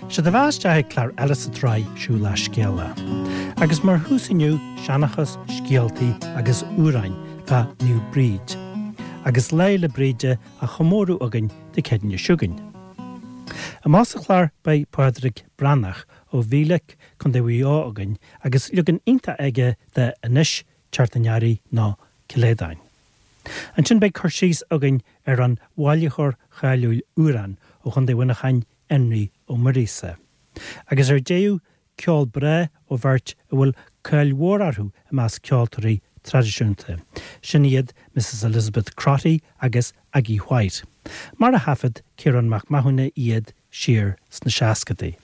Sé do bheatha isteach ag clár eile sa tsraith Siúil le Scéala. Agus mar thús inniu, seanchas, scéaltaí agus amhráin fá Naomh Bríd. Agus Lá 'le Bríde á chomóradh againn Dé Céadaoine seo chugainn. Amach sa chlár beidh Pádraig Breathnach ó Mhílic, Co. Mhaigh Eo againn agus leagan iontach aige de Anois Teacht an Earraigh nó Ceileadáin. Ansin beidh cur síos againn ar an bhailitheoir cháiliúil amhrán ó Chontae Mhuineacháin, Énrí Ó Muiríosa. Agus ar deireadh, ceol breá ó bheirt a bhfuil cáil mhór orthu i measc ceoltóirí traidisiúnta. Sin iad Mrs Elizabeth Crotty agus Aggie White, mar a thaifead Ciarán Mac Mathúna iad siar sna seascadaí.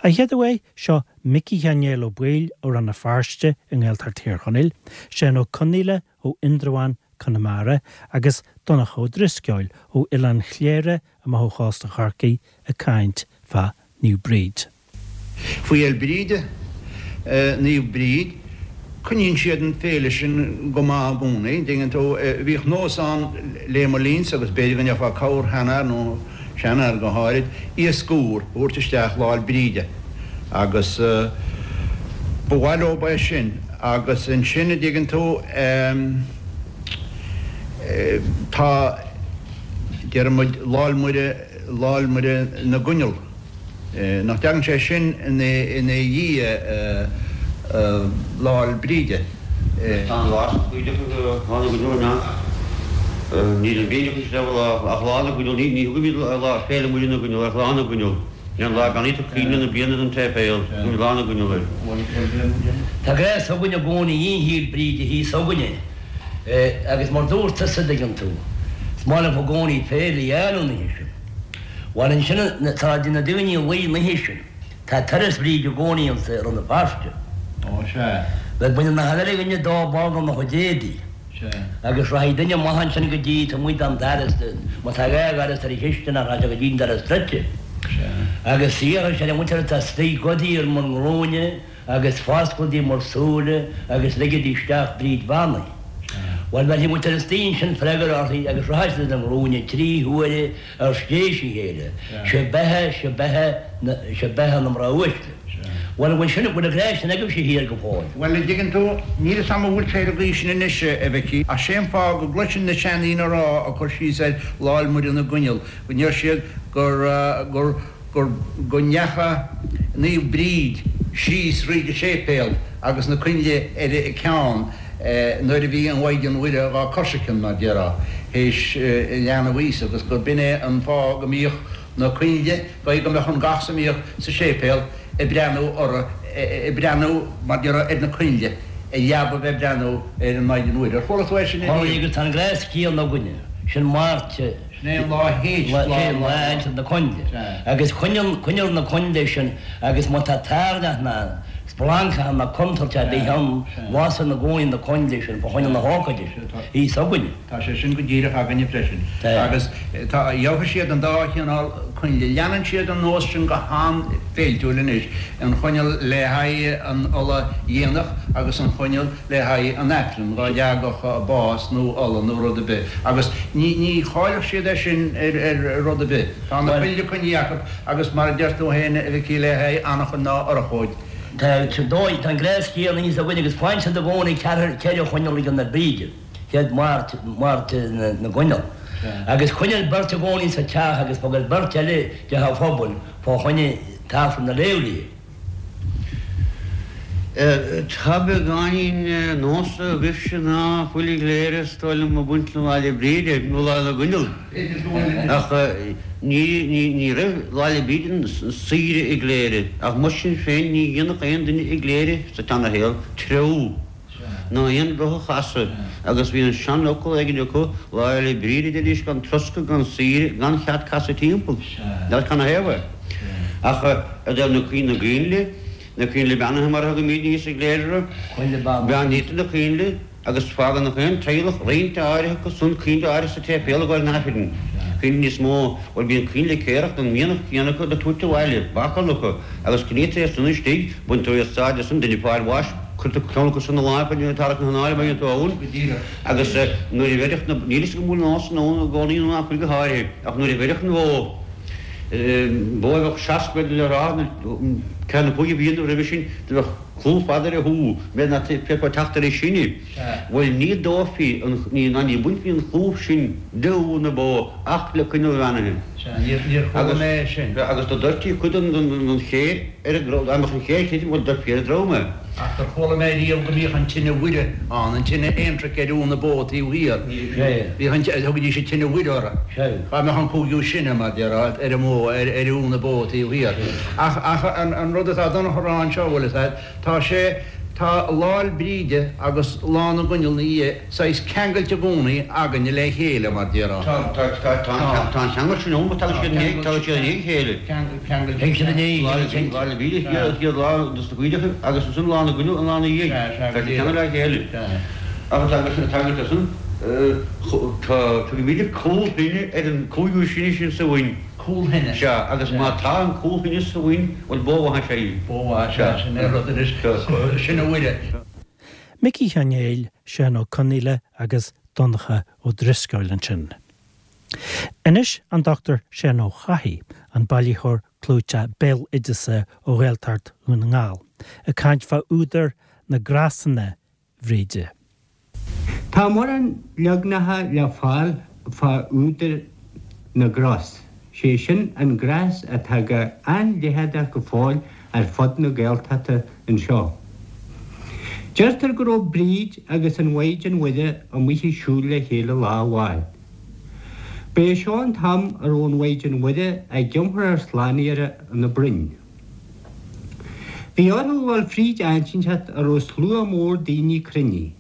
A chéad uair, seo Micí Sheáin Néill Ó Baoill ó Rann na Feirste i nGaeltacht Thír Chonaill, Seán Ó Conaola ó Indreabhán, Conamara, agus Donncha Ó Drisceoil ó Oileán Chléire amach ó chósta Chorcaí ag caint fá Naomh Bríd. Faoi Fhéil Bríde, Naomh Bríd, coinníonn siad an féile sin go maith i gcónaí, an dtuigeann tú. Bhíodh nós ann lé mo linnse agus b'fhéidir go ndéarfá corrsheanfhear nó seanfhear go háirid, iasc úr a thabhairt isteach Lá 'le Bríde agus ba mhaith leob é sin agus ansin, an dtuigeann tú, tá, déarfaidh muid, Lá 'le Muire, Lá 'le Muire na gCoinneal. Nach dtagann sé sin ina dhiaidh Lá 'le Bríde? Tá an lá sin cuideachta Lá na gCoinneal an ea? Níl an bhídeach is leabhar lá ach Lá na gCoinneal ní thugaimid lá Féile Muire na gCoinneal ach Lá na gCoinneal. Sin an lá beannaítear coinnle na bliana don tséipéal. Tugaimid Lá na gCoinneal air. Tá gnás againn i gcónaí Fhéil Bríde thíos againne agus mar dúirt tusa, dtuigeann tú, is maith liom i gcónaí féile a dhéanamh an oíche sin. Bhuel ansin tá na daoine a luí an oíche sin. Tá turas Bhríde i gcónaí anso i Rann na Feirste. Ó sea. Bhuel baineann achan uile dhuine dó ball dá chuid éadaí. Sea. Agus rachaidh duine amach ansin go dtí taobh amuigh den doras, má tá dhá dhoras ar an chisteanach rachaidh sé go dtí an doras druidte. Sea. Agus iarrfaidh sé ar an mhuintir atá istigh gabhaidí ar bhur nglúine agus fosclaigí bhur súile agus ligidí isteach Bríd Bheannaithe. Bhuel bheirfidh muintir istigh ansin freagra uirthi agus rachaidh siad ar a nglúine trí huaire ar th'éis a chéile, Sé beatha, sé beatha, sé beatha na mná uaisle. Bhuel, an bhfuil sin, bhfuil an gnás sin agaibhse thiar go fóill? Bhuel, an dtuigeann tú, níl fhios a'm an bhfuil sé ar an gcaoi sin anois, a Mhicí, ach sé an fáth go gcloisinn na seandaoine a rá, ag cur síos ar Lá 'le Muire na gCoinneal, go ndeir siad gur, gur, gur, go ndeacha Naomh Bríd síos thríd an séipéal agus na coinnle ar a ceann nuair a bhí an Mhaighdean Mhuire dhá coisricean, mar déarfá, théis leanbh Íosa agus gur b'in é an fáth go mbíodh na coinnle, go go mbeadh an gach a mbíodh sa séipéal ag breathnú orthu, ag breathnú, mar déarfá, ar na coinnle, i leaba bheith ag breathnú ar an Mhaighdean Mhuire. Ar chuala tú é sin ariamh? Agus tá an gnás céanna againne, sin Máirt. Sin é an lá théis lá Sin lá théis na coinnle. Agus coinneal na coinnle sin agus má tá tairneach ná splancach ná contúirt ar bith ann, lasann i gcónaí na coinnle sin fá choinne na hócáide sin. Thíos againne. Tá sé sin go díreach againne freisin. Agus tá, gheobhaidh siad an dá chineál coinnle. Leanann siad an nós sin go han-fhéiltiúil anois, an choinneal le haghaidh an ola dhéanach agus an choinneal le haghaidh an Aifrinn, dhá dteagadh bás nó ola nó rud ar bith, agus ní, ní chaillfeadh siad é sin ar rud ar bith. Tá na coinnle coinnithe acu agus mar a deir tú féin, a Mhicí, le haghaidh anachain ná urchóid. Tá, tá an gnás céanna thíos againn agus faigheann siad i gcónaí ceathair, ceithre choinneal ag an Bríde, chéad Máirt, Máirt na gCoinneal. Agus coinneal beirt i gcónaí sa teach agus fágann beirt eile i dteach an phobail fá choinne tAifreann a léamh léi. Tá beagáinín nós agaibhse ná fuil i gCléire is dóigh liom ag baint le Lá 'le Bríde nó Lá na gCoinneal. Ach ní raibh Lá 'le Bríde saoire i gCléire ach mar sin féin ní dhéanfadh aon duine i gCléire sa tseanashaol treabhadh. ná aon roth a chasadh, agus bhí an seanfhocal éigin acu, Lá Fhéile Bríde, a deiridís, gan troscadh, gan saoire, gan chead casadh timpeall. N'fheadar canathaobh é. Ach i dtaobh na na gcoinnle, na coinnle beannaithe mar a thugaimidne thíos i gCléire orthu, beannaítear na coinnle agus fágann gach aon teaghlach roinnt áirithe acu san, coinnle áirithe sa tséipéal ag gabháil an Aifrinn, coinnle níos mó, bhuel bíonn coinnle céarach den mhianach céanna acu le tabhairt abhaile, bácáil acu, agus coinnítear iad san istigh, baintear úsáid as san, duine ag fáil bháis, Cuirtear ceann acu san i láimh an tarrac na hanála mar dhéantar ann agus nuair a bheireadh na, níl fhios agam an bhfuil an nós sin ann i gcónaí nó nach bhfuil go háirithe, ach nuair a bheireadh an bhó. Bó a bheadh 60 le rá, ceann nó cúig bliana roimhe sin, do bheadh clúmh fada ar a hú, méid ná féadfá teacht ar an sine. Bhuel, ní dófaí, ná ní bainfí an clúmh sin de ú na bó ach le coinneal bheannaithe. Sea, níor chuala mé é sin. Agus do doirtí cuid den chéir ar an drom, dá mbeadh an chéir tirim, bhuel, doirtfí ar an drom é. Ach gur chuala mé riamh go mbíodh an tine Mhuire ann, an tine aontraic ar ú na bó taobh thiar. Bhíodh an, thugaidís an tine Mhuire orthu. Dhá mbeadh an cúigiú sine, mar déarfá, ar an mbó, ar ú na bó taobh thiar. Ach, ach an rud atá Donncha a rá anseo, bhfuil fhios a'd, tá sé, tá Lá'l Bríde agus Lá na gCoinneal 'na dhiaidh saghas ceangailte i gcónaí againne le chéile, mar déarfá. Tá, tá, tá, tá, tá an cheangal sin ann, tagann siad i ndiaidh, tagann siad i ndiaidh a chéile. Ceangailte. Tagann siad i ndiaidh a chéile. Lá 'le Bríde an chéad lá dos na coinneacha agus ansin Lá na gCoinneal an lá 'na dhiaidh. Tá siad ceangailte le chéile. Ach tá, tá, san, tá, tugaimid cúl thine ar an cúigiú sine sin sa bhoinn. Cúl thine. Sea, agus má tá an cúl thine sa bhoinn, bhuel, bó mhaith is ea í. Bó mhaith, sea, sin é rud anois, sin a Mhuire. Micí Sheáin Néill, Seán Ó Conaola agus Donncha Ó Drisceoil ansin. Anois an Dr Seán Ó Cathaigh, an bailitheoir clúiteach béaloideasa ó Ghaeltacht Dhún na nGall, ag caint fá údar na gcrosanna Bhríde. Tá mórán leagnacha le fáil fá údar na gcros, sé sin an gnás atá go an-leitheadach go fóill ar fud na Gaeltachta anseo. Deirtear go raibh Bríd agus an Mhaighdean Mhuire amuigh ag siúl le chéile lá amháin. Ba é seo an t-am a raibh an Mhaighdean Mhuire ag iompar ár Slánaitheora ina broinn. Bhí orthu a dhul fríd áit inteacht a raibh slua mór daoine cruinnithe.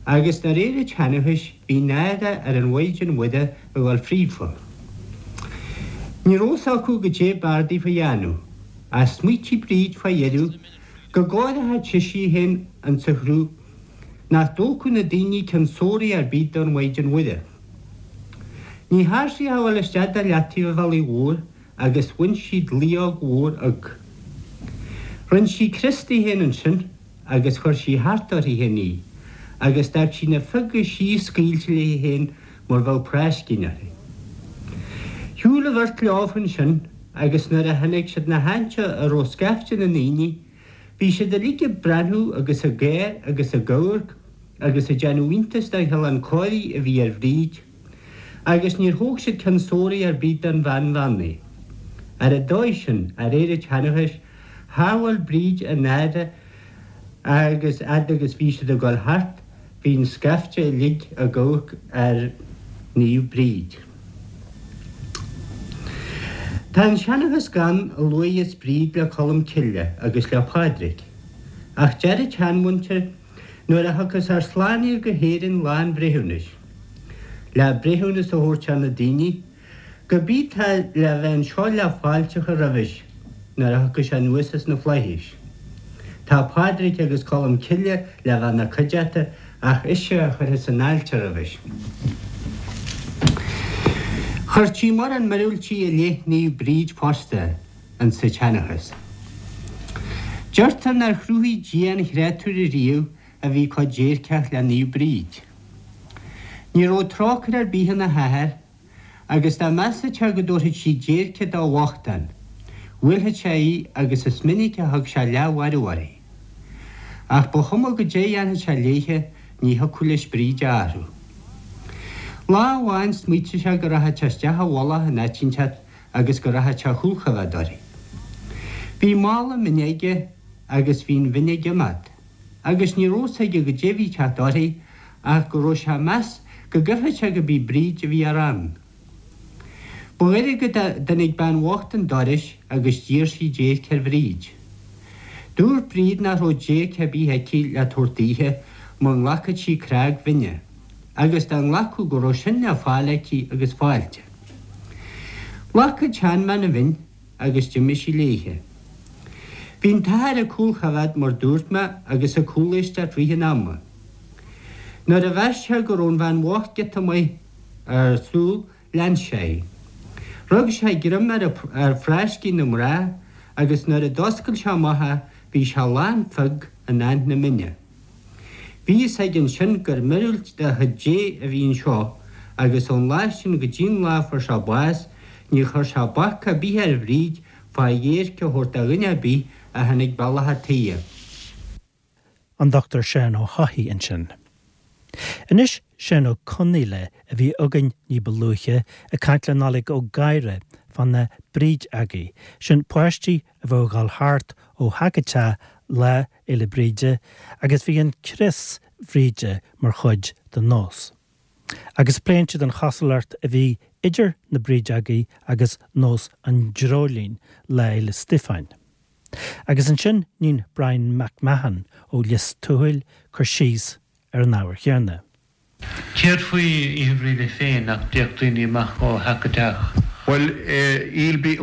Agus de réir an tseanchais bhí náire ar an Mhaighdean Mhuire a dhul fríofa. Ní raibh fhios acu goidé b'fhearr daofa a dhéanamh, ach smaoitigh Bríd fá dheireadh go gcóireochadh sise í féin insa chruth nach dtógfadh na daoine ceann sóraí ar bith don Mhaighdean Mhuire. Ní thearn sí ach a dhul isteach de leataobh an bhealaigh mhóir agus bhain sí dlaíóg mhór fhiodh. Rinn sí crios di féin ansin agus chuir sí thart uirthi féin í, agus d'fhág sí na fioga síos scaoilte léi féin mar bheadh práiscín uirthi. Shiúil an bheirt leofa ansin agus nuair a tháinig siad 'na háite a raibh scaifte na ndaoine, bhí siad uilig ag breathnú agus ag gáir agus ag amharc agus ag déanamh iontais den chineál cóirithe a bhí ar Bhríd. Agus níor thóg siad ceann sóraí ar bith don bhean bheannaithe. Ar an dóigh sin, de réir an tseanchais, shábháil Bríd a náire agus fhad agus bhí siad ag dul thart, bhí an scaifte uilig ag amharc ar Naomh Bríd. Tá an seanchas gann a luaigheas Bríd le Colm Cille agus le Pádraig. Ach deir an tseanmhuintir Nuair a thiocfas ár Slánaí go hÉirinn lá an bhreithiúnais, le breithiúnas a thabhairt ar na daoine, gurb í tá le bheith anseo le fáilte a chur roimhis nuair a thiocfaidh sé anuas as na flaithis. Tá Pádraig agus Colm Cille le bheith 'na cuideachta ach ise a chuirfeas an fháilte roimhis. Chuirtí mórán miorúiltí i leith Naomh Bríd fosta. insa tseanchas. Deirtear nár chruthaigh Dia aon chréatúr ariamh a bhí chomh déirceach le Naomh Bríd. Ní raibh trócaire ar bith ina hathair agus dá measfadh sé go dtabharfadh sí déirce do bhochtán, bhuailfeadh sé í agus is minic a thug sé leathmharú uirthi. Ach ba chuma goidé a dhéanfadh sé léithe ní thiocfadh leis Bríd a athrú. Lá amháin smaoitigh sé go rachadh sé isteach i bhfolach in áit inteacht agus go rachadh sé a chúlchoimheád uirthi. Bhí mála mine aige agus bhí an mhin ag imeacht, agus ní raibh fhios aige goidé a bhí ag teacht uirthi ach go raibh sé ag meas go gcreidfeadh sé go b'í Bríd a bhí á rá ann. Ba ghoirid go dtáinig bean bhocht 'un dorais agus d'iarr sí déirc ar Bhríd. Dúirt Bríd nach raibh déirc ar bith aici le tabhairt daoithe mura nglacfadh sí crág mhine, agus dá nglacfadh go raibh sin le fáil aici agus fáilte. Ghlac an tseanbhean an mhin agus d'imigh sí léithe. Bhí an t-athair ag cúlchoimheád mar dúirt mé agus ag cúléisteacht rith an ama. Nuair a mheas sé go raibh an bhean bhocht giota maith ar shiúl lean sé í. Rug sé greim ar ar phráiscín na mná agus nuair a d'oscail sé amach é bhí sé lán fiog in aithne mine. Bhí fhios aige ansin gur miorúilt de chuid Dé a bhí anseo agus ón lá sin go dtí an lá a fuair sé bás. Níor chuir sé bac ar bith ar Bhríd fá dhéirc a thabhairt do dhuine ar bith a tháinig bealach a' tighe. An Dr Seán Ó hEochaidh ansin. Anois Seán Ó Conaola a bhí againn ní ba luaithe ag caint le Nollaig Ó Gadhra fá na Brídeogaí, sin páistí a bheadh ag dhul thart ó theach go teach Lá Fhéile Bríde agus bhí an crios Bhríde mar chuid den nós. Agus pléann siad an chosúlacht a bhí idir na Brídeogaí agus nós an dreoilín Lá Fhéile Stíofáin. Agus ansin níonn Brian Mac Mahon ó Lios Tuathail cur síos ar an ábhar chéanna. Céard faoi Oíche Bhríde féin, nach dtéadh daoine amach ó theach go teach? Bhuel,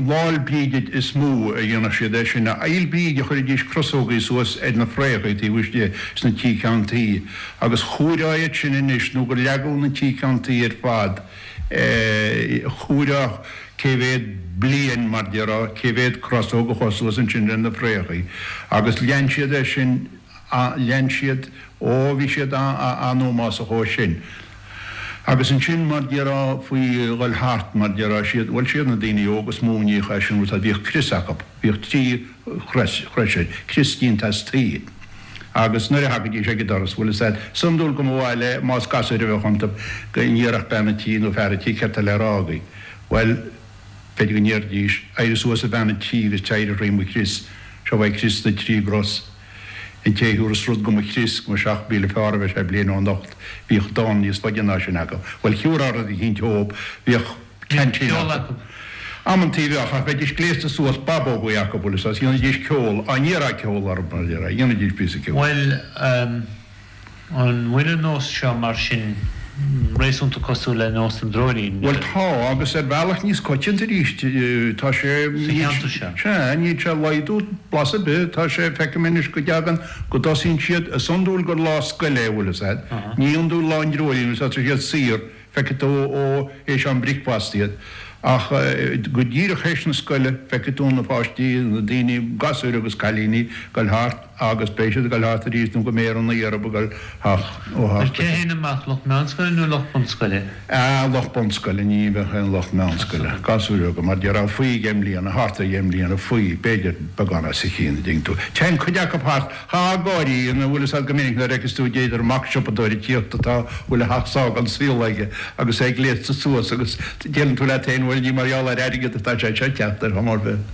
Lá'l Bríde is mó a dhéanadh siad é sin. Fhéil' Bríde chuiridís crosógaí suas ar na fréachaí taobh istigh sna tí ceann tuí agus chomhaireá iad sin anois nó gur leagadh na tí ceann tuí ar fad. Chomhaireá cé mhéad bliain, mar déarfá, cé mhéad crosóg a chuaigh suas ansin ar na fréachaí agus lean siad é sin. Lean siad, ó bhí siad an-ómásach ó sin. Agus ansin mar déarfá faoi dhul thart, mar déarfá, siad, bhuel siad na daoine óga is mó a níodh é sin, bhuel bhíodh crios acu, bhíodh trí chrois air, crios déanta as tuí. Agus nuair a thagaidís ag an doras, bhuel is ea, is iondúil go mba mhaith le, más gasúir a bheadh iontu, go ndéarfadh bean an tí nó fear an tí céard tá le rá agaibh. Bhuel, b'fhéidir go ndéarfaidís, éirigh suas a bhean an tí agus téir thrí mo chrios, seo é crios na dtrí gcros. An té a thiúras rud go mo chrios, go mba 7,000 fearr a bheidh sé bliain ó anocht. Bhíodh dán níos faide ná sin acu. Bhuel, thiúrfá rud eicínt dhób, bhíodh ceaintín acu. Amantaí bheadh, ach bheidís gléasta suas, babógaí acu, bhfuil fhios agat, dhéanaidís ceol, á n-iarrfá ceol orthu, mar a déarfá, dhéanaidís píosa ceoil. Bhuel, An bhfuil an nós seo mar sin réasúnta cosúil le nós an dreoilín? Bhuel tá, agus ar bhealach níos coitianta arís. Tá sé. Sa cheantar seo? Sea, níl sé ag laghdú blas ar bith. Tá sé, feicim anois go dtagann, go dtosaíonn siad, is iondúil gur lá scoile é, bhfuil fhios agat. Ní iondúil lá an dreoilín, bhfuil fhios agat, tá siad saor. Feicfidh tú ó théis am bricfeasta iad. Ach go díreach théis na scoile, feicfidh tú na páistí, na daoine, gasúir agus cailíní, ag dul thart agus beidh siad ag dul thart arís nó go mbeidh ar an oíche orthu ag dul theach ó theach go Cé a théann amach, lucht meánscoile nó lucht bunscoile? Ah, lucht bunscoile, ní bheadh aon lucht meánscoile. Gasúir bheaga, mar déarfá, faoi dheich mbliana, thart ar dheich mbliana, faoi, b'fhéidir beagán os a chionn, a dtuigeann tú. Téann cuid acu thart. Tá gáirí ina bhfuil fhios agat go minic nuair a fheiceas tú d'fhéidir mac siopadóir ag tíocht atá bhfuil a theach sága an saol aige agus é gléasta suas agus deireann tú leat féin bhuel ní mar gheall ar airgead atá sé seo ag teacht ar chuma ar bith.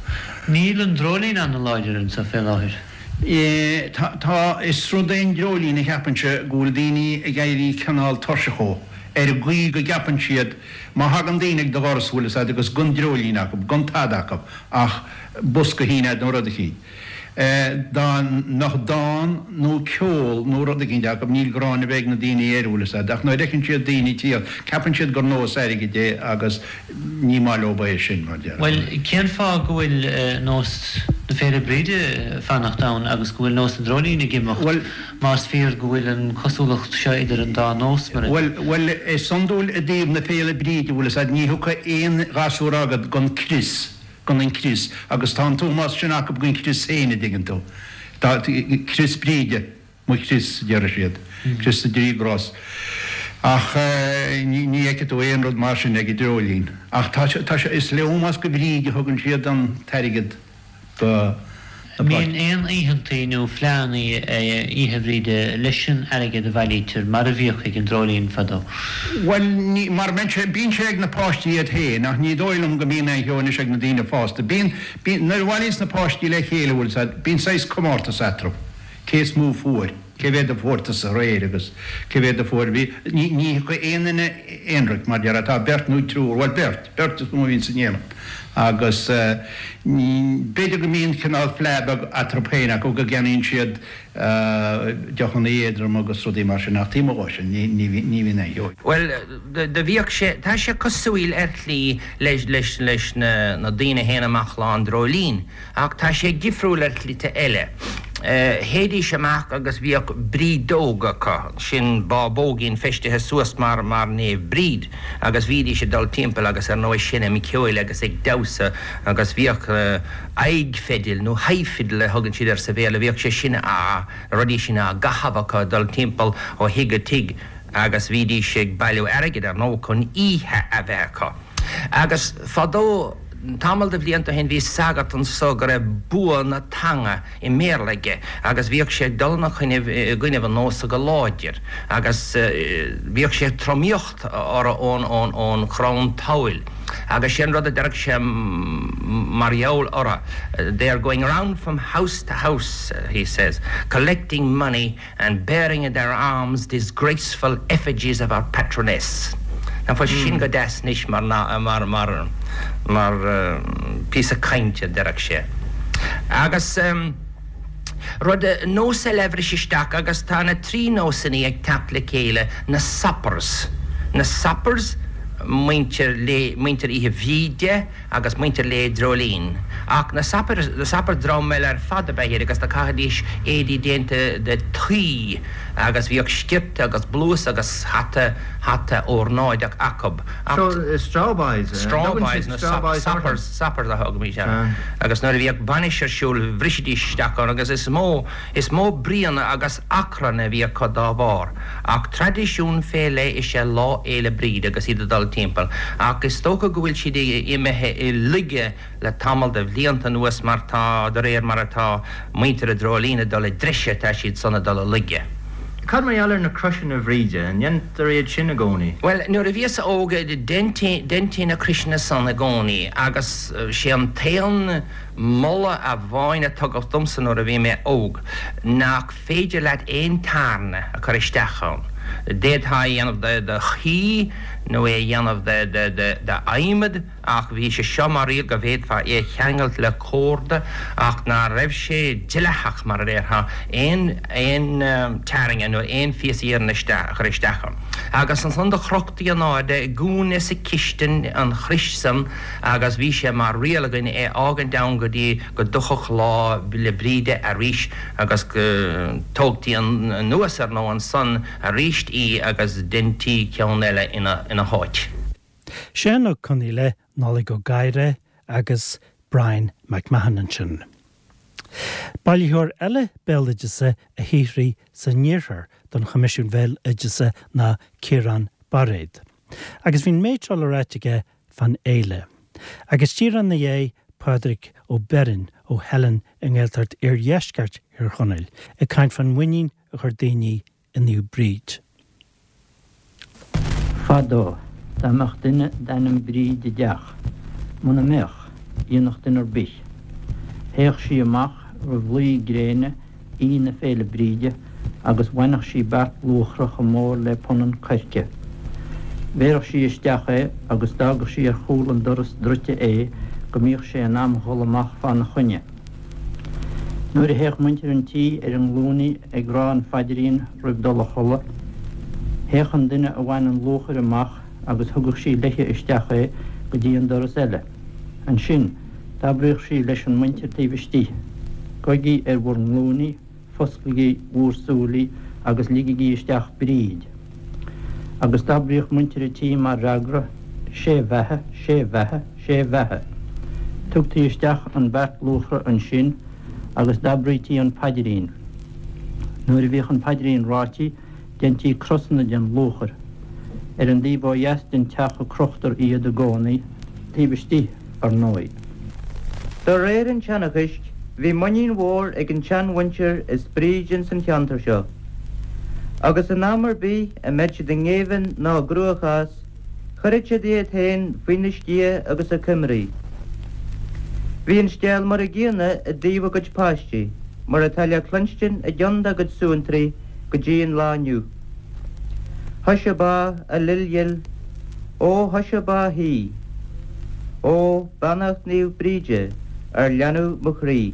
Níl an dreoilín ana-láidir anseo fé láthair. Tá, tá, is rud é an dreoilín a cheapainnse go bhfuil daoine ag éirí cineál tuirseach dhó, ar an gcaoi go gceapann siad má thagann daoine ag do dhoras bhfuil fhios agat agus gan dreoilín acu, gan tada acu ach bosca a shíneadh nó rud eicínt. Dá mbeadh dán nó ceol nó rud eicínt acu, níl gráin ar bith ag na daoine air, bhfuil fhios a'd, ach nuair a fheiceann siad daoine ag tíocht, ceapann siad gur nós airgid é agus ní maith leob é sin, mar déarfá. Bhuel, cén fáth go bhfuil nós na Féile Bríde ag fanacht ann agus go bhfuil nós an Dreoilín ag imeacht, más fíor go bhfuil an chosúlacht seo idir an dá nós, mar a. Bhuel, bhuel, is iondúil i dtaobh na Féile Bríde, bhfuil fhios a'd, ní thiocfaidh aon ghasúr agat gan crios. gan an crios, agus tá an t-ómós sin acu don chrios féin, a dtuigeann tú. Tá, crios Bríde, mo chrios, a déarfaidh siad, crios na dtrí gcros. Ach ní, ní fheicfidh tú aon rud mar sin ag an dreoilín. Ach tá sé, tá sé, is le ómós do Bhríd a thugann siad an t-airgead do na An mbíonn aon oícheantaí nó fleánnaí Oíche Bhríde leis an airgead a bhailítear, mar a bhíodh ag an Dreoilín fadó? Bhuel, ní, mar bíonn sé, bíonn sé ag na páistí iad féin, ach ní dóigh liom go mbíonn aon cheo anois ag na daoine fásta. Bíonn, bíonn, nuair a bhailíonns na páistí le chéile, bhfuil 's a'd, bíonn saghas comórtas eatarthu, cé is mó fuair. Cé mhéad a fuair tusa aréir agus cé mhéad a fuair, bhí, ní, ní thiocfaidh aon duine aonraic mar déarfá, tá beirt nó triúr, bhuel beirt, beirt is mó a bhíonn san éineacht agus ní, b'fhéidir go mbíonn cineál fleá beag eatarthu féin acu go gceannaíonn siad deochanna éadrom agus rudaí mar sin ach taobh amuigh dhó sin ní, ní, ní bhíonn aon cheo. Bhuel, do bhíodh sé, tá sé cosúil ar shlí leis, leis, leis na, na daoine a théann amach Lá an Dreoilín. Ach tá sé difriúil ar shlite eile. Théidís amach agus bhíodh brídeog acu, sin bábóigín feistithe suas mar mar Naomh Bríd, agus bhídís ag dul timpeall agus ar ndóigh seinm ceoil agus ag damhsa agus bhíodh aghaidh feidil nó high fiddle a thugann siad air sa Bhéarla, bhíodh sé sin á, na rudaí sin á gcaitheamh acu ag dul timpeall ó thigh go tigh agus bhídís ag bailiú airgid ar ndóigh chun oíche a bheith acu. Agus fadó, tamall de bhlianta ó shin, bhí sagart anso go raibh bua na teanga i mBéarla aige agus bhíodh sé ag dul ina choinnibh, i gcoinnibh an nósa go láidir agus bhíodh sé ag tromaíocht orthu ón, ón, ón chrann tadhaill agus sé an rud a deireadh sé mar gheall orthu, They are going round from house to house, he says, collecting money and bearing in their arms disgraceful effigies of our patroness. Nach bhfuil sin go deas anois mar mar mar mar píosa cainte, a déarfadh sé. Agus rud, nós eile a bhris isteach agus tá na trí nósannaí ag teacht le chéile, na soppers. Na soppers, muintir lae, muintir Oíche Bhríde, agus muintir Lae Dreoilín. Ach na soppers, na soppers dream eile ar fad ab ea iad agus do chaithidís éadaí déanta de tuí agus bhíodh sciorta agus blús agus hata, hata órnáideach acub. Ach. So, straw boys, eh? Straw boys nó soppers, soppers a thugaimís orthu. Agus nuair a bhíodh bainis ar siúl bhrisidís isteach ann agus is mó, Is mó bruíon agus achrann a bhí acu dá bharr. Ach traidisiún fé leith is ea Lá Fhéile Bríde agus iad ag dul timpeall. Ach is dócha go bhfuil siad imithe i laige le tamall de bhlianta anuas mar tá, de réir mar atá muintir an Dreoilín ag dul i dtreise tá siad san ag dul i laige. Cad mar gheall ar na croiseanna Bhríde, an ndéantar iad sin i gcónaí? Bhuel, nuair a bhíos óg deintí na croiseanna san i gcónaí agus sé an t-aon Moladh amháin a tugadh domsa nuair a bhí mé óg, nach féidir leat aon tairne a chur isteach ann. D'fhéadfá é a dhéanamh de thuí nó é a dhéanamh d'adhmad ach bhí sé seo mar riail go bhféadfá é a cheangailt le córda ach ná raibh sé dleathach, mar a déarfá, aon aon tairne nó aon phíosa iarainn a chur isteach ann. Agus ansan do chrochtaí in airde i gcúinne sa chistin an chrois san agus bhí sé mar riail againn é fhágaint ann go dtí go dtiocfadh Lá 'le Bríde arís agus go dtógtaí anuas ar ndóigh ansan aríst í agus deintí ceann eile ina háit. Seán Ó Conghaile, Nollaig Ó Gadhra agus Brian McMahon ansin. Bailitheoir eile béaloideasa a shaothraigh san iarthar don Choimisiún Bhéaloideasa ná Ciarán Bairéad. Agus bhí an méid seo le ráit aige fán fhéile. Agus díreach ina dhiaidh, Pádraig Ó Beirn ó Theileann i nGaeltacht Iardheisceart Thír Chonaill ag caint fán mhuinín a chuir daoine i Naomh Bríd. Fadó, dá mbeadh duine d'ainm Bríd i dteach, muna mbeadh, dhéanfadh duine ar bith. Théadh sí amach roimh luí gréine Aoine Féile Bríde agus bhainfeadh sí beart luachra chomh mór le punann coirce. Bhéarfadh sí isteach é agus d'fhágadh sí ar chúl an doras druidte é go mbíodh sé in am dhul amach fána choinne. Nuair a théadh muintir an tí ar a nglúiní ag rá an phaidrín roimh dul a chodladh, théadh an duine a bhain an luachair amach agus thugadh sí léithe isteach é go dtí an doras eile. Ansin, d'abraíodh sí leis an muintir taobh istigh, Gabhaigí ar bhur nglúiní, fosclaigí bhúr súilí agus ligigí isteach Bríd. Agus d'abraíodh muintir a' tí mar fhreagra, Sé bheatha, sé bheatha, sé bheatha. Tugtaí isteach an beart luachra ansin agus d'abraítí an paidrín. Nuair a bhíodh an paidrín ráití, Deintí crosanna den luachair. Ar an dtaobh ó dheas den teach a crochtar iad i gcónaí, taobh istigh, ar ndóigh. De réir an tseanchais, bhí muinín mhór ag an tseanmhuintir as Bríd ins an cheantar seo, agus in am ar bith a mbeadh siad i ngéibheann ná i gcruachás, chuireadh siad iad féin faoina sciath agus a coimrí. Bhí an scéal mar a gcéanna i dtaobh a gcuid páistí, mar atá le cluinstin i gceann dá gcuid suantraí, go dtí an lá inniu. Thusa ba a lil dhil, ó thusa ba shuí, ó beannacht Naomh Bríde ar leanbh mo chroí.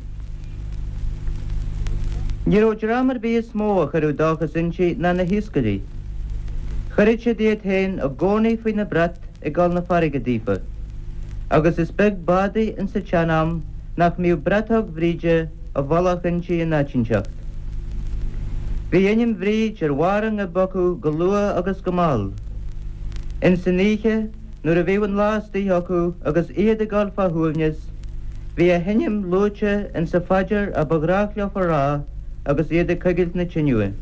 Ní raibh dream ar bith is mó a chuireadh dóchas inti ná na hiascairí. Chuireadh siad iad féin i gcónaí faoina brat ag dul 'na farraige daofa, agus is beag bádaí insa tsean-am nach mbíodh bratóg Bhríde i bhfolach inti in áit inteacht. Bhí ainm Bhríd ar bharr a ngoib acu go luath agus go mall. Ins an oíche, nuair a bhíodh an lá istigh acu agus iad ag dul fá shuaimhneas, bhí a hainm luaite insa phaidir a ba ghnách leofa rá agus iad ag coigilt na tineadh.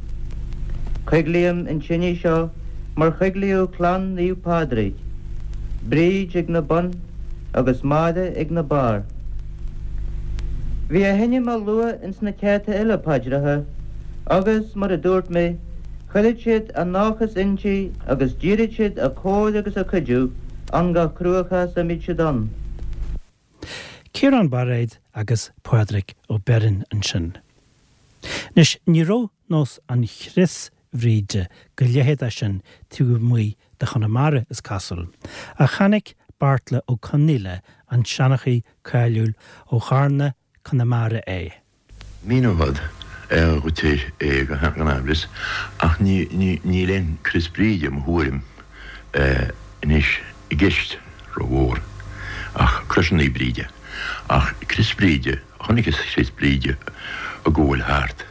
Coiglím an tinidh seo mar choiglíodh clann Naomh Pádraig. Bríd ag na bun agus Máire ag na barr. Bhí a hainm á lua ins na céadta eile paidreacha agus, mar a dúirt mé, chuiread siad a ndóchas inti agus d'iarraid siad a comhair agus a cuidiú ann gach cruachás a mbíod siad ann. Ciarán Bairéad agus Pádraig Ó Beirn ansin. Anois, ní raibh nós an chrios Bhríde go leitheadach sin taobh amuigh de Chonamara, is cosúil, ach chonaic Beartla Ó Conaola, an seanchaí cáiliúil ó Charna, Conamara é. Míneofad dhuit é gan amhras, ach níl aon Crios Bríde, i mo thuairim, anois i gceist rómhór, ach croiseanna Bríde. Ach Crios Bríde, chonaiceas Crios Bríde ag gabháil thart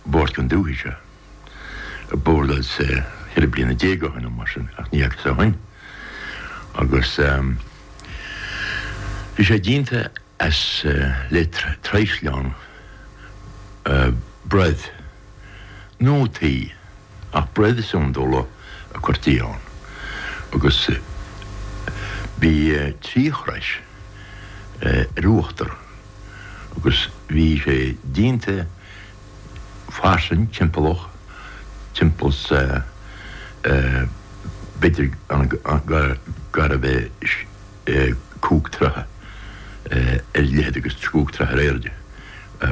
bord den dúthaigh seo, bord as 14 bliana ó shin nó mar sin, ach ní fhacas ó shin. Agus bhí sé déanta as le traoisleán broibh nó tuí, ach broibh is iondúla a cuirtí ann, agus bhí trí chrois ar uachtar agus bhí sé déanta fairsing timpeallach, timpeall 's b'fhéidir gurbh é cúig troithe ar leithead agus cúig troithe ar airde,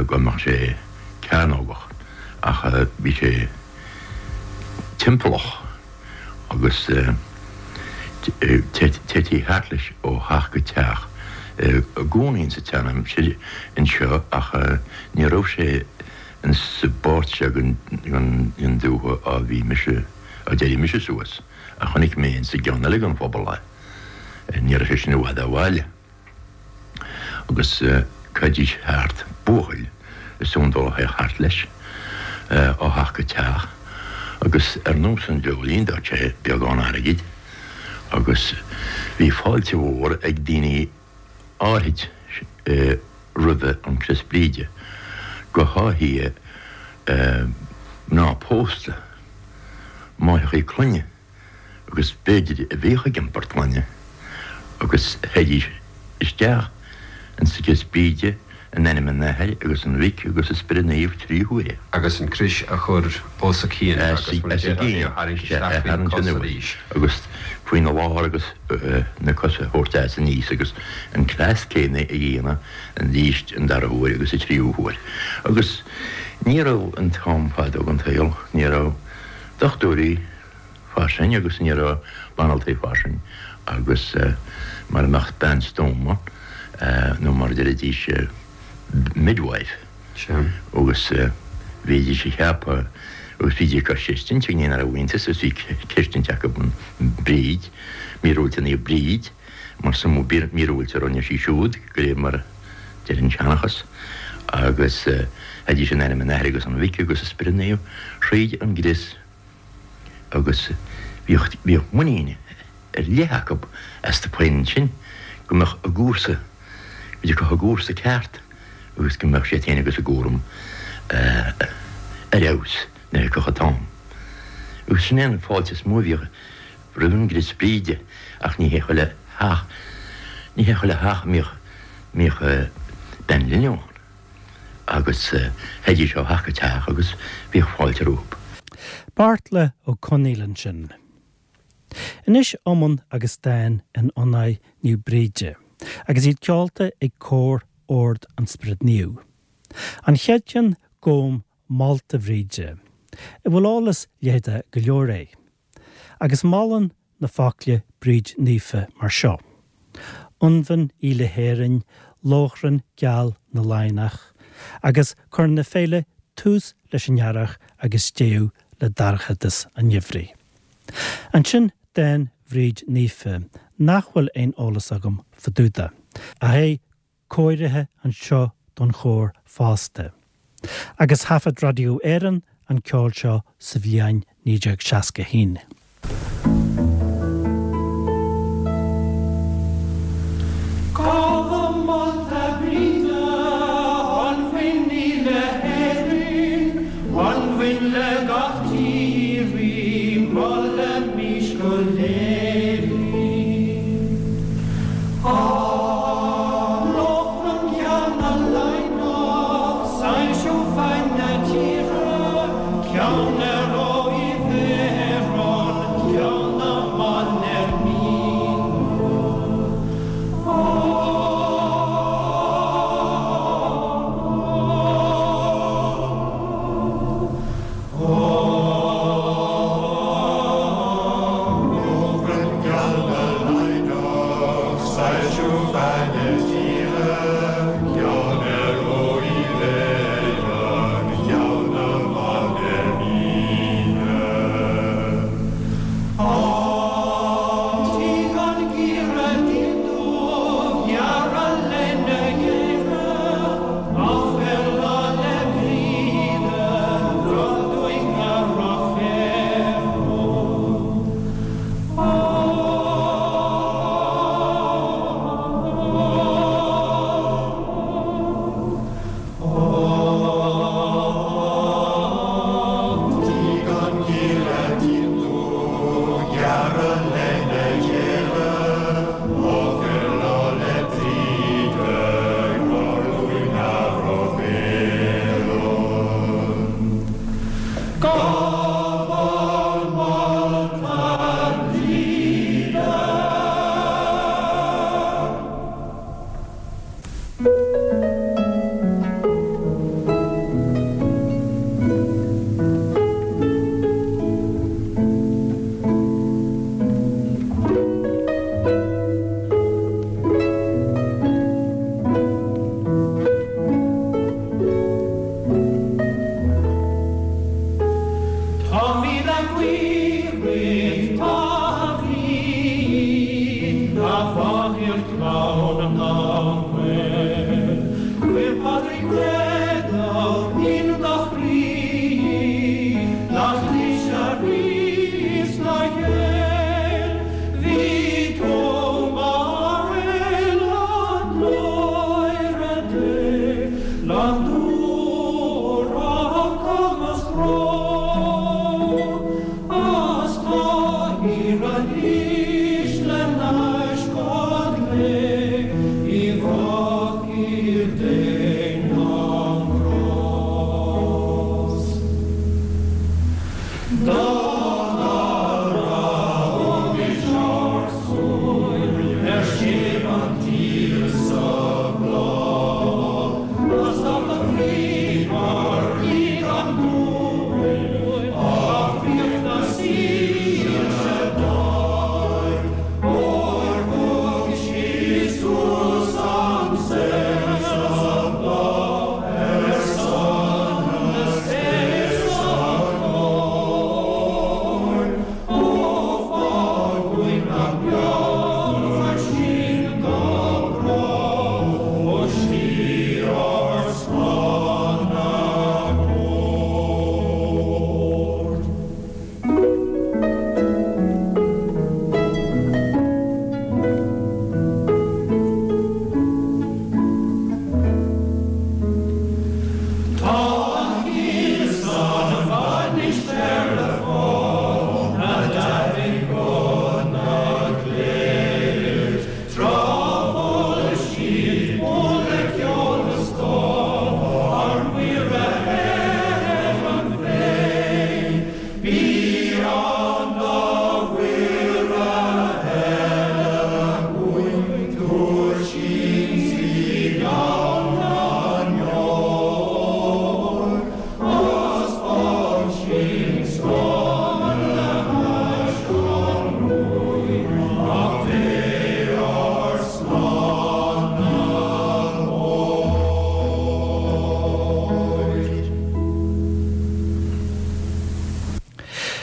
go mbeadh sé cearnógach, ach bhí sé timpeallach agus téití thart leis ó theach go teach i gcónaí insa tseanaimsir anseo ach ní raibh sé insa bpáirt seo den dúiche á bhí mise, á d'éirigh mise suas, ach chonaic mé insa gceann eile den phobal é. Ní raibh sé sin i bhfad ó bhaile. Agus chaithidís thart, buachaill is iondúil a théadh thart leis, ó theach go teach, agus ar nós an dreoilín d'fhág sé beagán airgid, agus bhí fáilte mhór ag daoine áithrid roimhe an Crios Bríde, go háithithe mná pósta, máithreachaí clainne. agus b'fhéidir a bhíodh ag iompar clainne, agus théidís isteach insa gCrios Bríde in ainm an Athar agus an Mhic agus an Spioraid Naoimh trí huaire. agus an crios a chur os a cionn agus mar a déarfá é a tharraingt isteach faoi na cosa arís. agus faoina lár agus na cosa a thabhairt as aníos agus an cleas céanna a dhéanamh arís an dara huair agus an tríú huair. Agus ní raibh an t-am fadó den tsaol, ní raibh dochtúirí, fairsing agus ní raibh banaltraí fairsing agus mara mbeadh bean stuama nó mar a deiridís midwife agus bhídís a cheapadh agus bhídís ag creidstint ag ní raibh iontas agus bhí creidstint acu an Bríd, míorúilt Naomh Bríd mar is iomaí míorúilt a rinne sí siúd de réir mar a deir an seanchas agus théidís in ainm an Athar agus an Mhic agus an Spioraid Naoimh thríd an gcrios. agus bhíodh, bhíodh muinín ar leith acu astu féin ansin go mbeadh a gcúrsa, go dtiocfadh a gcúrsa ceart agus go mbeadh siad féin agus a gcúram ar fheabhas nuair a thiocfadh an t-am. Agus sin é an fáilte is mó a bhíodh roimh an gCrios Bríde ach ní hé chuile theach, ní hé chuile theach a mbíodh, mbíodh bean linbh ann. agus théidís ó theach go teach agus bhíodh fáilte rompu. Beartla Ó Conaola ansin. Anois iomann agus dán in onóir Naomh Bríde, agus iad ceolta ag Cór Ord an Spioraid Naoimh. An chéad cheann Gabhaim molta Bhríde, a bhfuil eolas leitheadach go leor air. Agus molann na focla Bríd Naofa mar seo, Ionbhan í le hÉirinn, lóchrann geal na Laighneach, agus cuireann a féile tús leis an earrach agus deireadh le dorchadas an gheimhridh. Ansin dán Bhríd Naofa, nach bhfuil aon eolas agam fá dtaobh de, ach é cóirithe anseo don chór fosta. Agus thaifead Radio Éireann an ceol seo sa bhliain 1961. Gabhaim molta Bríde, anbhinn í le hÉirinn, anbhinn le gach tír í, molaimís go léir í.